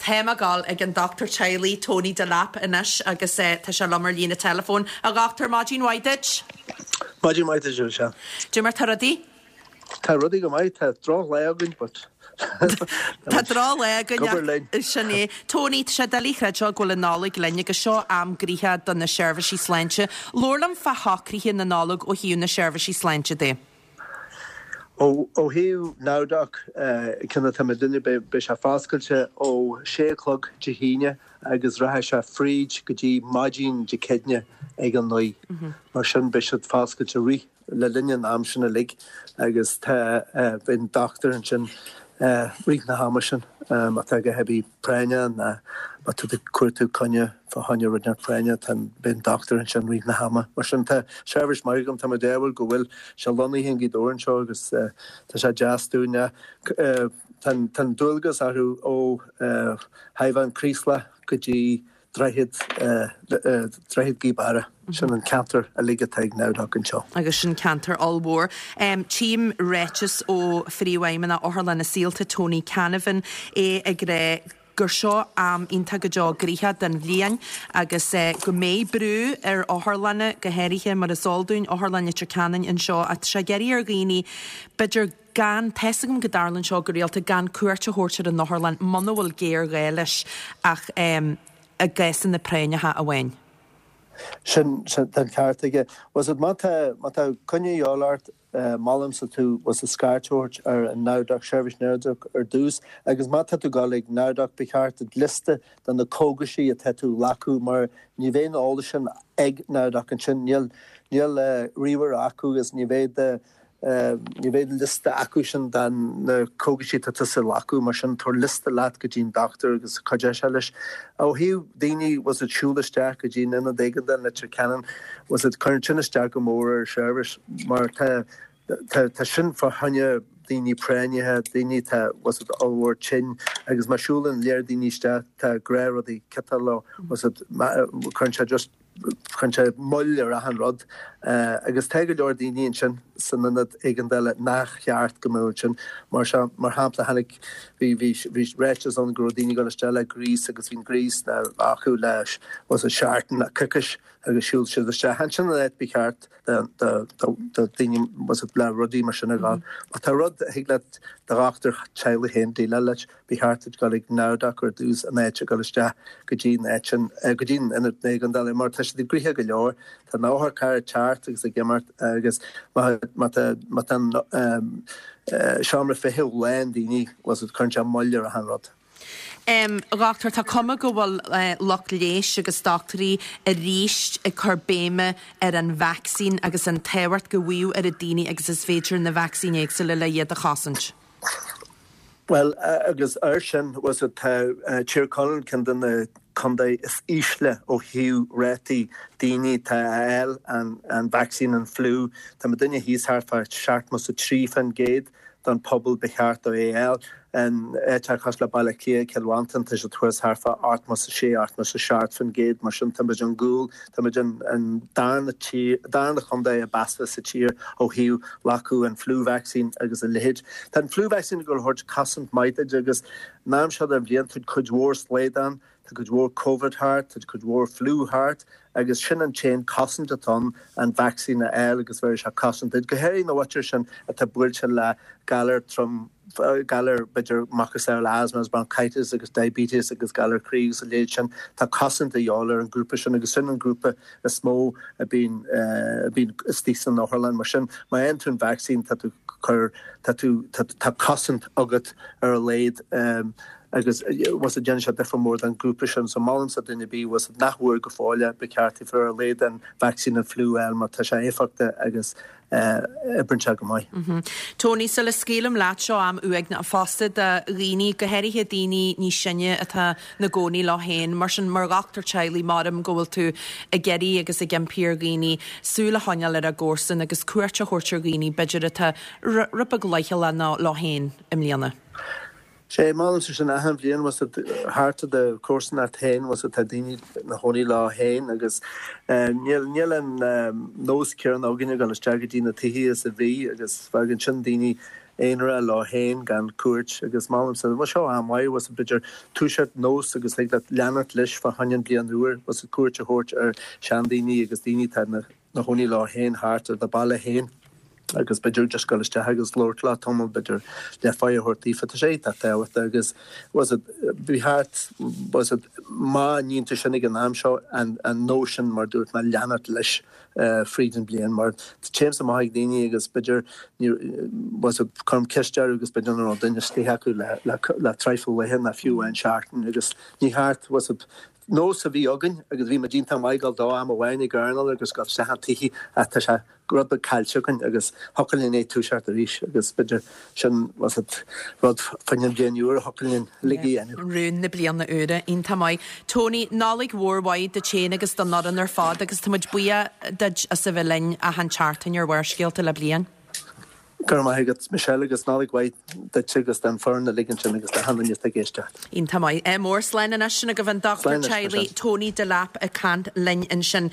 Táim ag dul ag an dochtúir teaghlaigh Tony Delap anois agus tá sé liom ar líne teileafóin. A dhochtúir, maidin mhaith duit. Maidin mhaith duit, Michelle. Cad é mar tá rudaí? Tá rudaí go maith, tá drochlá againn but Tá drochlá againn ach linn. Sin é. Tony, tá sé doiligh a chreidbheáil go bhfuil an Nollaig linn agus seo am gnoitheach do na seirbhísí sláinte. Labhair liom fá shocruithe na Nollag ó thaobh na seirbhísí sláinte de. Ó thaobh NowDoc, cionn atá muidinne, beidh sé foscailte ó sé a chlog Dé hAoine agus rachaidh sé fríd go dtí maidin Dé Céadaoine ag a 9. Mar sin beidh siad foscailte rith le linn an am sin uilig agus tá, beidh an dochtúir ansin rith na hama sin má tá a dhath ar bith práinneach ná má tá tú ag cuartú coinne fá choinne rud inteacht práinneach tá an, beidh an dochtúir ansin rith na hama. Mar sin tá seirbhís maith agam, tá mé ádhúil go bhfuil sé lonnaithe i nGaoth Dobhair anseo agus tá sé deas dúinn. Tá an, tá an dualgas orthu ó Thaobh an Chraoslaigh go dtí Droichead, Droichead Ghaoth Beara. Sin an ceantar uilig atá ag NowDoc anseo. Agus sin ceantar ollmhór. Tchím ráiteas ó Phríomhfheidhmeannach Otharlann na Saolta, Tony Canavan, é ag rá gur seo am iontach go deo gnoitheach den bhliain agus go mbeidh brú ar otharlanna, go háirithe mar is eol dúinn, Otharlann Leitir Ceanainn anseo ach tá sé ag iarraidh ar dhaoine b'fhéidir gan, tá's agam go dtarlaíonn seo go rialta, gan cuairt a thabhairt ar an otharlann muna bhfuil géarghá leis ach i gcásanna práinneacha amháin. Sin, sin, tá an ceart aige. Bhfuil 's a'd, má tá, má tá coinne a dhíobháil ort, molaimse tú, bhfuil 's a'd, scairt a thabhairt ar an NowDoc, seirbhís NowDoc ar dtús agus má tá tú ag dul ag NowDoc ba cheart duit liosta de na cógaisí atá tú a ghlacadh mar ní bheidh an eolas sin ag NowDoc ansin, níl, níl ríomhaire acu agus ní bheidh do, Ní bheidh liosta acu sin de na cógaisí atá tusa a ghlacadh, mar sin tabhair liosta leat go dtí an dochtúir agus cuideoidh sé leis. Ó thaobh daoine, bhfuil 's a'd, siúl isteach go dtí an ionad éigeandála i Leitir Ceanainn, bhfuil 's a'd, cuireann sin isteach go mór ar an seirbhís mar tá, tá, tá sin fá choinne daoine práinneacha, daoine atá, bhfuil 's a'd, ollmhór tinn agus má siúlann léar daoine isteach tá gnáthrudaí ciotal leo, bhfuil 's a'd, cuireann sé just. Cuireann sé moill ar achan rud agus tá go leor daoine ansin san ionad éigeandála nach cheart go mbeadh ansin. Mar seo, mar shampla, tháinig, bhí, bhí, bhí ráiteas ann go raibh daoine ag dul isteach le gríos agus bhí an gríos acu le, bhfuil 's a'd, seachtain nó coicís agus shiúil siad isteach. Ansin an áit ba cheart do, do, do, do daoine, bhfuil 's a'd, le rudaí mar sin a dhul. Má tá rud a thig leat do dhochtúir teaghlaigh féin déileáil leis, Ba cheart duit dul ag NowDoc ar dtús in áit a dhul isteach go dtí an áit sin, go dtí an ionad éigeandála mar tá siad gnoitheach go leor. Tá na otharchairr ag teacht agus ag imeacht agus má má tá má tá an seomra feithimh lán daoine, bhfuil 's a'd, cuireann sé moill ar achan rud. A dhochtúir, tá cuma go bhfuil lucht leighis agus dochtúirí arís ag cur béime ar an vacsaín agus an tábhacht go bhfaigheadh oiread daoine agus is féidir na vacsaíní éagsúla le iad a chosaint. Bhuel, agus air sin, bhfuil 's a'd, tá Tír Chonaill ceann de na contae is ísle ó thaobh rátaí daoine atá a fháil an vacsaín an fliú. Tá muidinne thíos thart fá 73% den pobal ba cheart dó é a fháil. In áiteacha cosúil le Baile Átha Cliath, Cill Mhantáin, tá siad thuas thart fá 86, 87%, mar sin tá muid an gcúl, tá muid an darna tír, darna chontae ab fhearr sa tír ó thaobh glacadh an flu vaccine agus a leithéid. Tá an flu vaccine ag dul a thabhairt cosaint maith duit agus an am seo den bhliain tá cuid mhór slaghdán, tá cuid mhór Covid thart, tá cuid mhór flu thart agus sin an t-aon cosaint atá ann, an vacsaín a fháil agus bheirfidh sé cosaint duit, go háirithe na mhuintir sin atá buailte le galar trom, galar b'fhéidir macasamhail asthma agus bronchitis agus diabetes agus galar croí agus a leithéid sin, tá cosaint a dhíobháil ar an grúpa sin agus sin an grúpa is mó a bíonn a bíonn istigh san otharlann. Mar sin, má fhaigheann tú an vacsaín tá tú cur tá tú tá tá cosaint agat ar a laghad agus bhfuil 's a'd déanann sé difear mór don ghrúpa sin. So molaimse duine ar bith bhfuil 's a'd nach bhfuair go fóill é, ba cheart daofa ar a laghad an vacsaín an fliú a fháil mar tá sé éifeachtach agus oibríonn sé go maith. Tony, sula scaoilim leat, seo am uaigneach fosta do dhaoine, go háirithe daoine níos sine atá 'na gcónaí leo féin. Mar sin, mar dhochtúir teaghlaigh, maram go bhfuil tú ag iarraidh agus ag impí ar dhaoine súil a choinneáil ar a gcomharsain agus cuairt a thabhairt ar dhaoine, b'fhéidir, atá rud beag leithchealach leo féin i mbliana. Sé, molaimse sin achan bhliain, bhfuil 's a'd, thart i do chomharsanacht féin, bhfuil 's a'd, tá daoine 'na chónaí leo féin agus níl, níl an nós céanna againn ag dul isteach go dtí na tithe is a bhí agus fágann sin daoine. aonarach leo féin gan cuairt agus molaimse, bhuel seo am mhaith, bhfuil 's a'd, b'fhéidir toiseacht nós agus thig leat leanacht leis fá choinne an bliain úr, bhfuil 's a'd, cuairt a thabhairt ar seandaoine agus daoine atá ina gcónaí leo féin thart ar do baile féin agus b'fhéidir just dul isteach agus labhairt leo tamall, b'fhéidir leath-pháigh a thabhairt daofa, tá sé iontach tábhachtach agus bhfuil 's a'd, ba cheart, bhfuil 's a'd, má níonn tú sin ag an am seo an nós sin mar dúirt mé leanacht leis. fríd an bliain mar téimse amach ag daoine agus b'fhéidir bhfuil 's a'd, cuirim ceist orthu agus b'fhéidir nach raibh duine istigh acu le traidhfil laetha ná fiú amháin seachtain agus ní cheart bhfuil 's a'd, nós a bhí againn agus bhí muid iontach maith ag dul dó am amháin ag airneál agus gabh isteach an tithe ach tá sé rud beag caillte againn agus thiocfadh linn é toiseacht arís agus b'fhéidir sin bhfuil 's a'd, rud fá choinne an bhliain úr a thiocfadh linn uilig a dhéanamh. Rún na bliana úire. Iontach maith. Tony, Nollaig mhór mhaith duit féin agus don fhoireann ar fad agus tá muid buíoch duit as a bheith linn achan tseachtain ar Bharrscéalta le bliain. Go raibh maith agat, Michelle, agus Nollaig mhaith duit agus don foireann uilig ansin agus d'achan duine atá ag éisteacht. Iontach maith. Ádh mór. Slán anois. Sin agaibh an Dochtúir Teaghlaigh Tony Delap ag caint linn ansin.